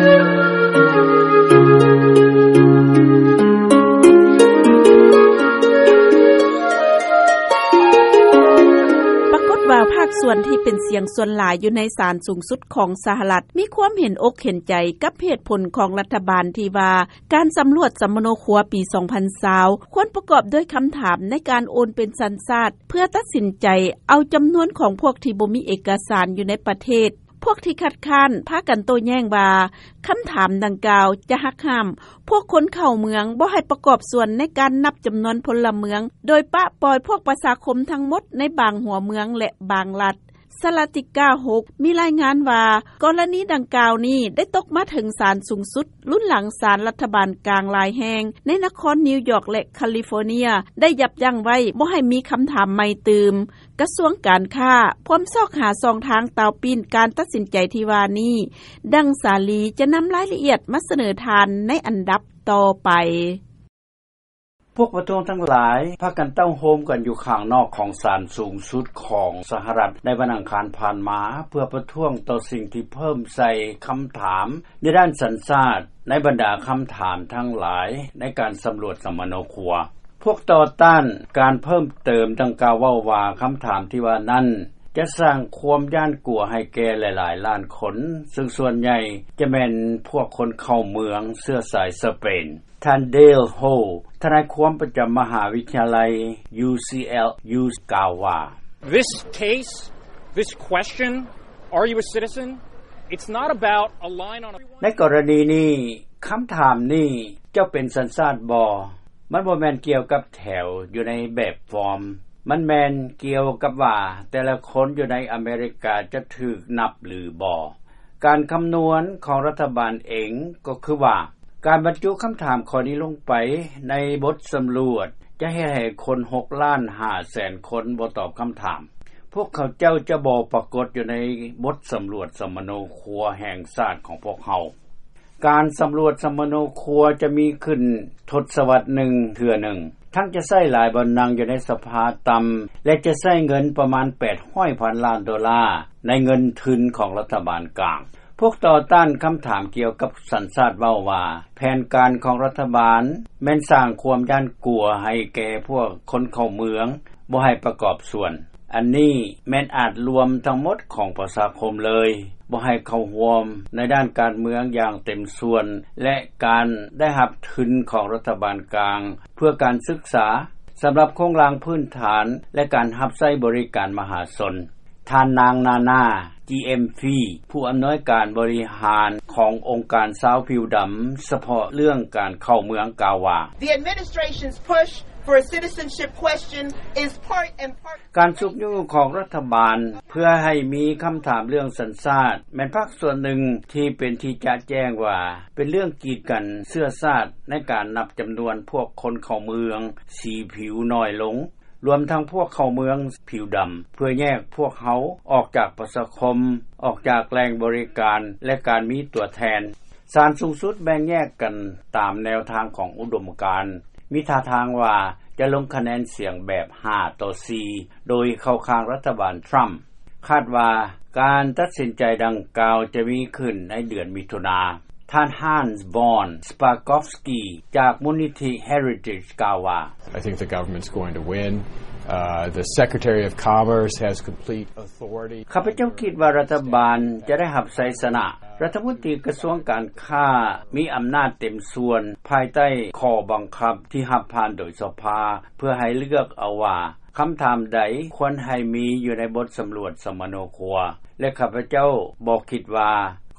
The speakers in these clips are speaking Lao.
ປາກົດວ່າພາກສ່ວນທີ່ເປັນສຽງສ່ວນຫຼາຍຢູ່ໃນສານສູງສຸດຂອງສະຫະລັດ ມີຄວາມເຫັນອົກເຫັນໃຈກັບເຫດຜົນຂອງລັດຖະບານທີ່ວ່າ ການສຳຫຼວດສຳມະໂນຄົວປີສອງພັນຊາວ ຄວນປະກອບດ້ວຍຄຳຖາມໃນການໂອນເປັນສັນຊາດ ເພື່ອຕັດສິນໃຈເອົາຈຳນວນຂອງພວກທີ່ບໍ່ມີເອກະສານຢູ່ໃນປະເທດ. ພວກທີ່ຄັດຄ້ານພາກັນໂຕ້ແຍ້ງວ່າ ຄຳຖາມດັ່ງກ່າວຈະຫັກຫ້າມພວກຄົນເຂົ້າເມືອງບໍ່ໃຫ້ປະກອບສ່ວນໃນການນັບຈຳນວນພົນລະເມືອງ ໂດຍປະປ່ອຍພວກປະຊາຄົມທັງໝົດໃນບາງຫົວເມືອງ ແລະ ບາງລັດ. ສະລາຕິກາຫົກ ມີລາຍງານວ່າ ກໍລະນີດັ່ງກ່າວນີ້ໄດ້ຕົກມາເຖິງສານສູງສຸດ ລຸນຫຼັງສານລັດຖະບານກາງຫຼາຍແຫ່ງໃນນະຄອນນິວຢອກ ແລະ ຄາລີຟໍເນຍ ໄດ້ຢັບຢັ້ງໄວ້ບໍ່ໃຫ້ມີຄຳຖາມໃໝ່ຕື່ມ. ກະຊວງການຄ້າພວມຊອກຫາຊ່ອງທາງຕາວປີ້ນການຕັດສິນໃຈທີ່ວ່ານີ້, ດັ່ງສາລີ ຈະນຳລາຍລະອຽດມາສະເໜີທ່ານໃນອັນດັບຕໍ່ໄປ. ພວກປະທ້ວງທັງຫຼາຍພາກັນເຕົ້າໂຮມກັນຢູ່ຂ້າງນອກຂອງສານສູງສຸດຂອງສະຫະລັດໃນວັນອັງຄານຜ່ານມາ ເພື່ອປະທ້ວງຕໍ່ສິ່ງທີ່ເພີ່ມໃສ່ຄຳຖາມໃນດ້ານສັນຊາດໃນບັນດາຄຳຖາມທັງຫຼາຍໃນການສຳຫຼວດສຳມະໂນຄົວ. ພວກຕໍ່ຕ້ານການເພີ່ມເຕີມດັ່ງກ່າວເວົ້າວ່າ ຄຳຖາມທີ່ວ່ານັ້ນຈະສ້າງຄວາມຢ້ານກົວໃຫ້ແກ່ຫຼາຍໆລ້ານຄົນ, ເຊິ່ງສ່ວນໃຫຍ່ຈະແມ່ນພວກຄົນເຂົ້າເມືອງເຊື້ອສາຍສະເປນ. ທ່ານ Dale Ho ທະນາຍຄວາມປະຈຳມະຫາວິທະຍາໄລ UCLA ກ່າວວ່າ This case, this question, are you a citizen? It's not about a line on a ໃນກໍລະນີນີ້, ຄຳຖາມນີ້, ເຈົ້າເປັນສັນຊາດບໍ່? ມັນບໍ່ແມ່ນກ່ຽວກັບແຖວຢູ່ໃນແບບຟອມ. ມັນແມ່ນກ່ຽວກັບວ່າແຕ່ລະຄົນຢູ່ໃນອາເມລິກາຈະຖືກນັບຫຼືບໍ່. ການຄຳນວນຂອງລັດຖະບານເອງກໍຄືວ່າ ການບັນຈຸຄຳຖາມຂໍ້ນີ້ລົງໄປໃນບົດສຳຫຼວດ ຈະເຮັດໃຫ້ຄົນຫົກລ້ານຫ້າແສນຄົນບໍ່ຕອບຄຳຖາມ. ພວກເຂົາເຈົ້າຈະບໍ່ປາກົດຢູ່ໃນບົດສຳຫຼວດສຳມະໂນຄົວແຫ່ງຊາດຂອງພວກເຮົາ. ການສຳຫຼວດສຳມະໂນຄົວຈະມີຂຶ້ນທົດສະວັດໜຶ່ງເທື່ອໜຶ່ງ, ທັງຈະໃຊ້ຫຼາຍບ່ອນນັ່ງຢູ່ໃນສະພາຕ່ຳ ແລະ ຈະໃຊ້ເງິນປະມານແປດຮ້ອຍພັນລ້ານໂດລາໃນເງິນທຶນຂອງລັດຖະບານກາງ. ພວກຕໍ່ຕ້ານຄຳຖາມກ່ຽວກັບສັນຊາດເວົ້າວ່າ ແຜນການຂອງລັດຖະບານແມ່ນສ້າງຄວາມຢ້ານກົວໃຫ້ແກ່ພວກຄົນເຂົ້າເມືອງ ບໍ່ໃຫ້ປະກອບສ່ວນ. ອັນນີ້ແມ່ນອາດລວມທັງໝົດຂອງປະຊາຄົມເລີຍ, ບໍ່ໃຫ້ເຂົ້າຮ່ວມໃນດ້ານການເມືອງຢ່າງເຕັມສ່ວນ ແລະ ການໄດ້ຮັບທຶນຂອງລັດຖະບານກາງ ເພື່ອການສຶກສາ, ສຳລັບໂຄງລ່າງພື້ນຖານ ແລະ ການຮັບໃຊ້ບໍລິການມະຫາຊົນ. ທ່ານນາງ ນານາ ຈີເອັມຟີ ຜູ້ອຳນວຍການບໍລິຫານຂອງອົງການຊາວຜິວດຳສະເພາະເລື່ອງການເຂົ້າເມືອງກ່າວວ່າ The administration's push for a citizenship question is part and part ການຊຸກຍູ້ຂອງລັດຖະບານເພື່ອໃຫ້ມີຄຳຖາມເລື່ອງສັນຊາດ ແມ່ນພາກສ່ວນໜຶ່ງທີ່ເປັນທີ່ຈະແຈ້ງວ່າ ເປັນເລື່ອງກີດກັນເຊື້ອຊາດໃນການນັບຈຳນວນພວກຄົນເຂົ້າເມືອງສີຜິວໜ້ອຍລົງ ລວມທັງພວກເຂົ້າເມືອງຜິວດຳ ເພື່ອແຍກພວກເຮົາອອກຈາກປະຊາຄົມ, ອອກຈາກແຫຼ່ງບໍລິການ ແລະ ການມີຕົວແທນ. ສານສູງສຸດແບ່ງແຍກກັນຕາມແນວທາງຂອງອຸດົມການ, ມີທ່າທາງວ່າຈະລົງຄະແນນສຽງແບບຫ້າຕໍ່ສີ່ ໂດຍເຂົ້າຂ້າງລັດຖະບານທຣຳ. ຄາດວ່າການຕັດສິນໃຈດັ່ງກ່າວຈະມີຂຶ້ນໃນເດືອນມິຖຸນາ. ທ່ານ Hans von Spakovsky ຈາກມູນນິທິ Heritage ກ່າວວ່າ I think the government's going to win. Uh, the Secretary of Commerce has complete authority. ຂ້າພະເຈົ້າຄິດວ່າລັດຖະບານຈະໄດ້ຮັບໄຊຊະນະ. ລັດຖະມົນຕີກະຊວງການຄ້າມີອຳນາດເຕັມສ່ວນ ພາຍໃຕ້ຂໍ້ບັງຄັບທີ່ຮັບຜ່ານໂດຍສະພາ ເພື່ອໃຫ້ເລືອກເອົາວ່າ ຄຳຖາມໃດຄວນໃຫ້ມີຢູ່ໃນບົດສຳຫຼວດສຳມະໂນຄົວ ແລະ ຂ້າພະເຈົ້າບໍ່ຄິດວ່າ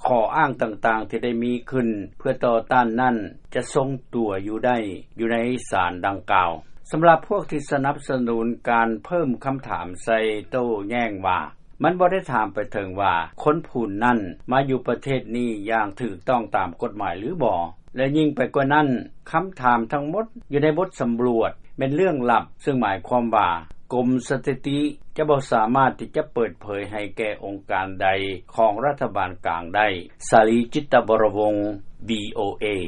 ຂໍ້ອ້າງຕ່າງໆທີ່ໄດ້ມີຂຶ້ນເພື່ອຕໍ່ຕ້ານນັ້ນ ຈະຊົງຕົວຢູ່ໄດ້ຢູ່ໃນສານດັ່ງກ່າວ. ສຳລັບພວກທີ່ສະໜັບສະໜູນການເພີ່ມຄຳຖາມໃສ່ໂຕ້ແຍ້ງວ່າ ມັນບໍ່ໄດ້ຖາມໄປເຖິງວ່າຄົນຜູ້ນັ້ນມາຢູ່ປະເທດນີ້ຢ່າງຖືກຕ້ອງຕາມກົດໝາຍຫຼືບໍ່. ແລະ ຍິ່ງໄປກວ່ານັ້ນ, ຄຳຖາມທັງໝົດຢູ່ໃນບົດສຳຫຼວດແມ່ນເລື່ອງລັບ, ເຊິ່ງໝາຍຄວາມວ່າກົມສະຖິຕິຈະບໍ່ສາມາດທີ່ຈະເປີດເຜີຍໃຫ້ແກ່ອົງການໃດຂອງລັດຖະບານກາງໄດ້. ສາລີ ຈິດຕະວໍລະວົງ ວີໂອເອ.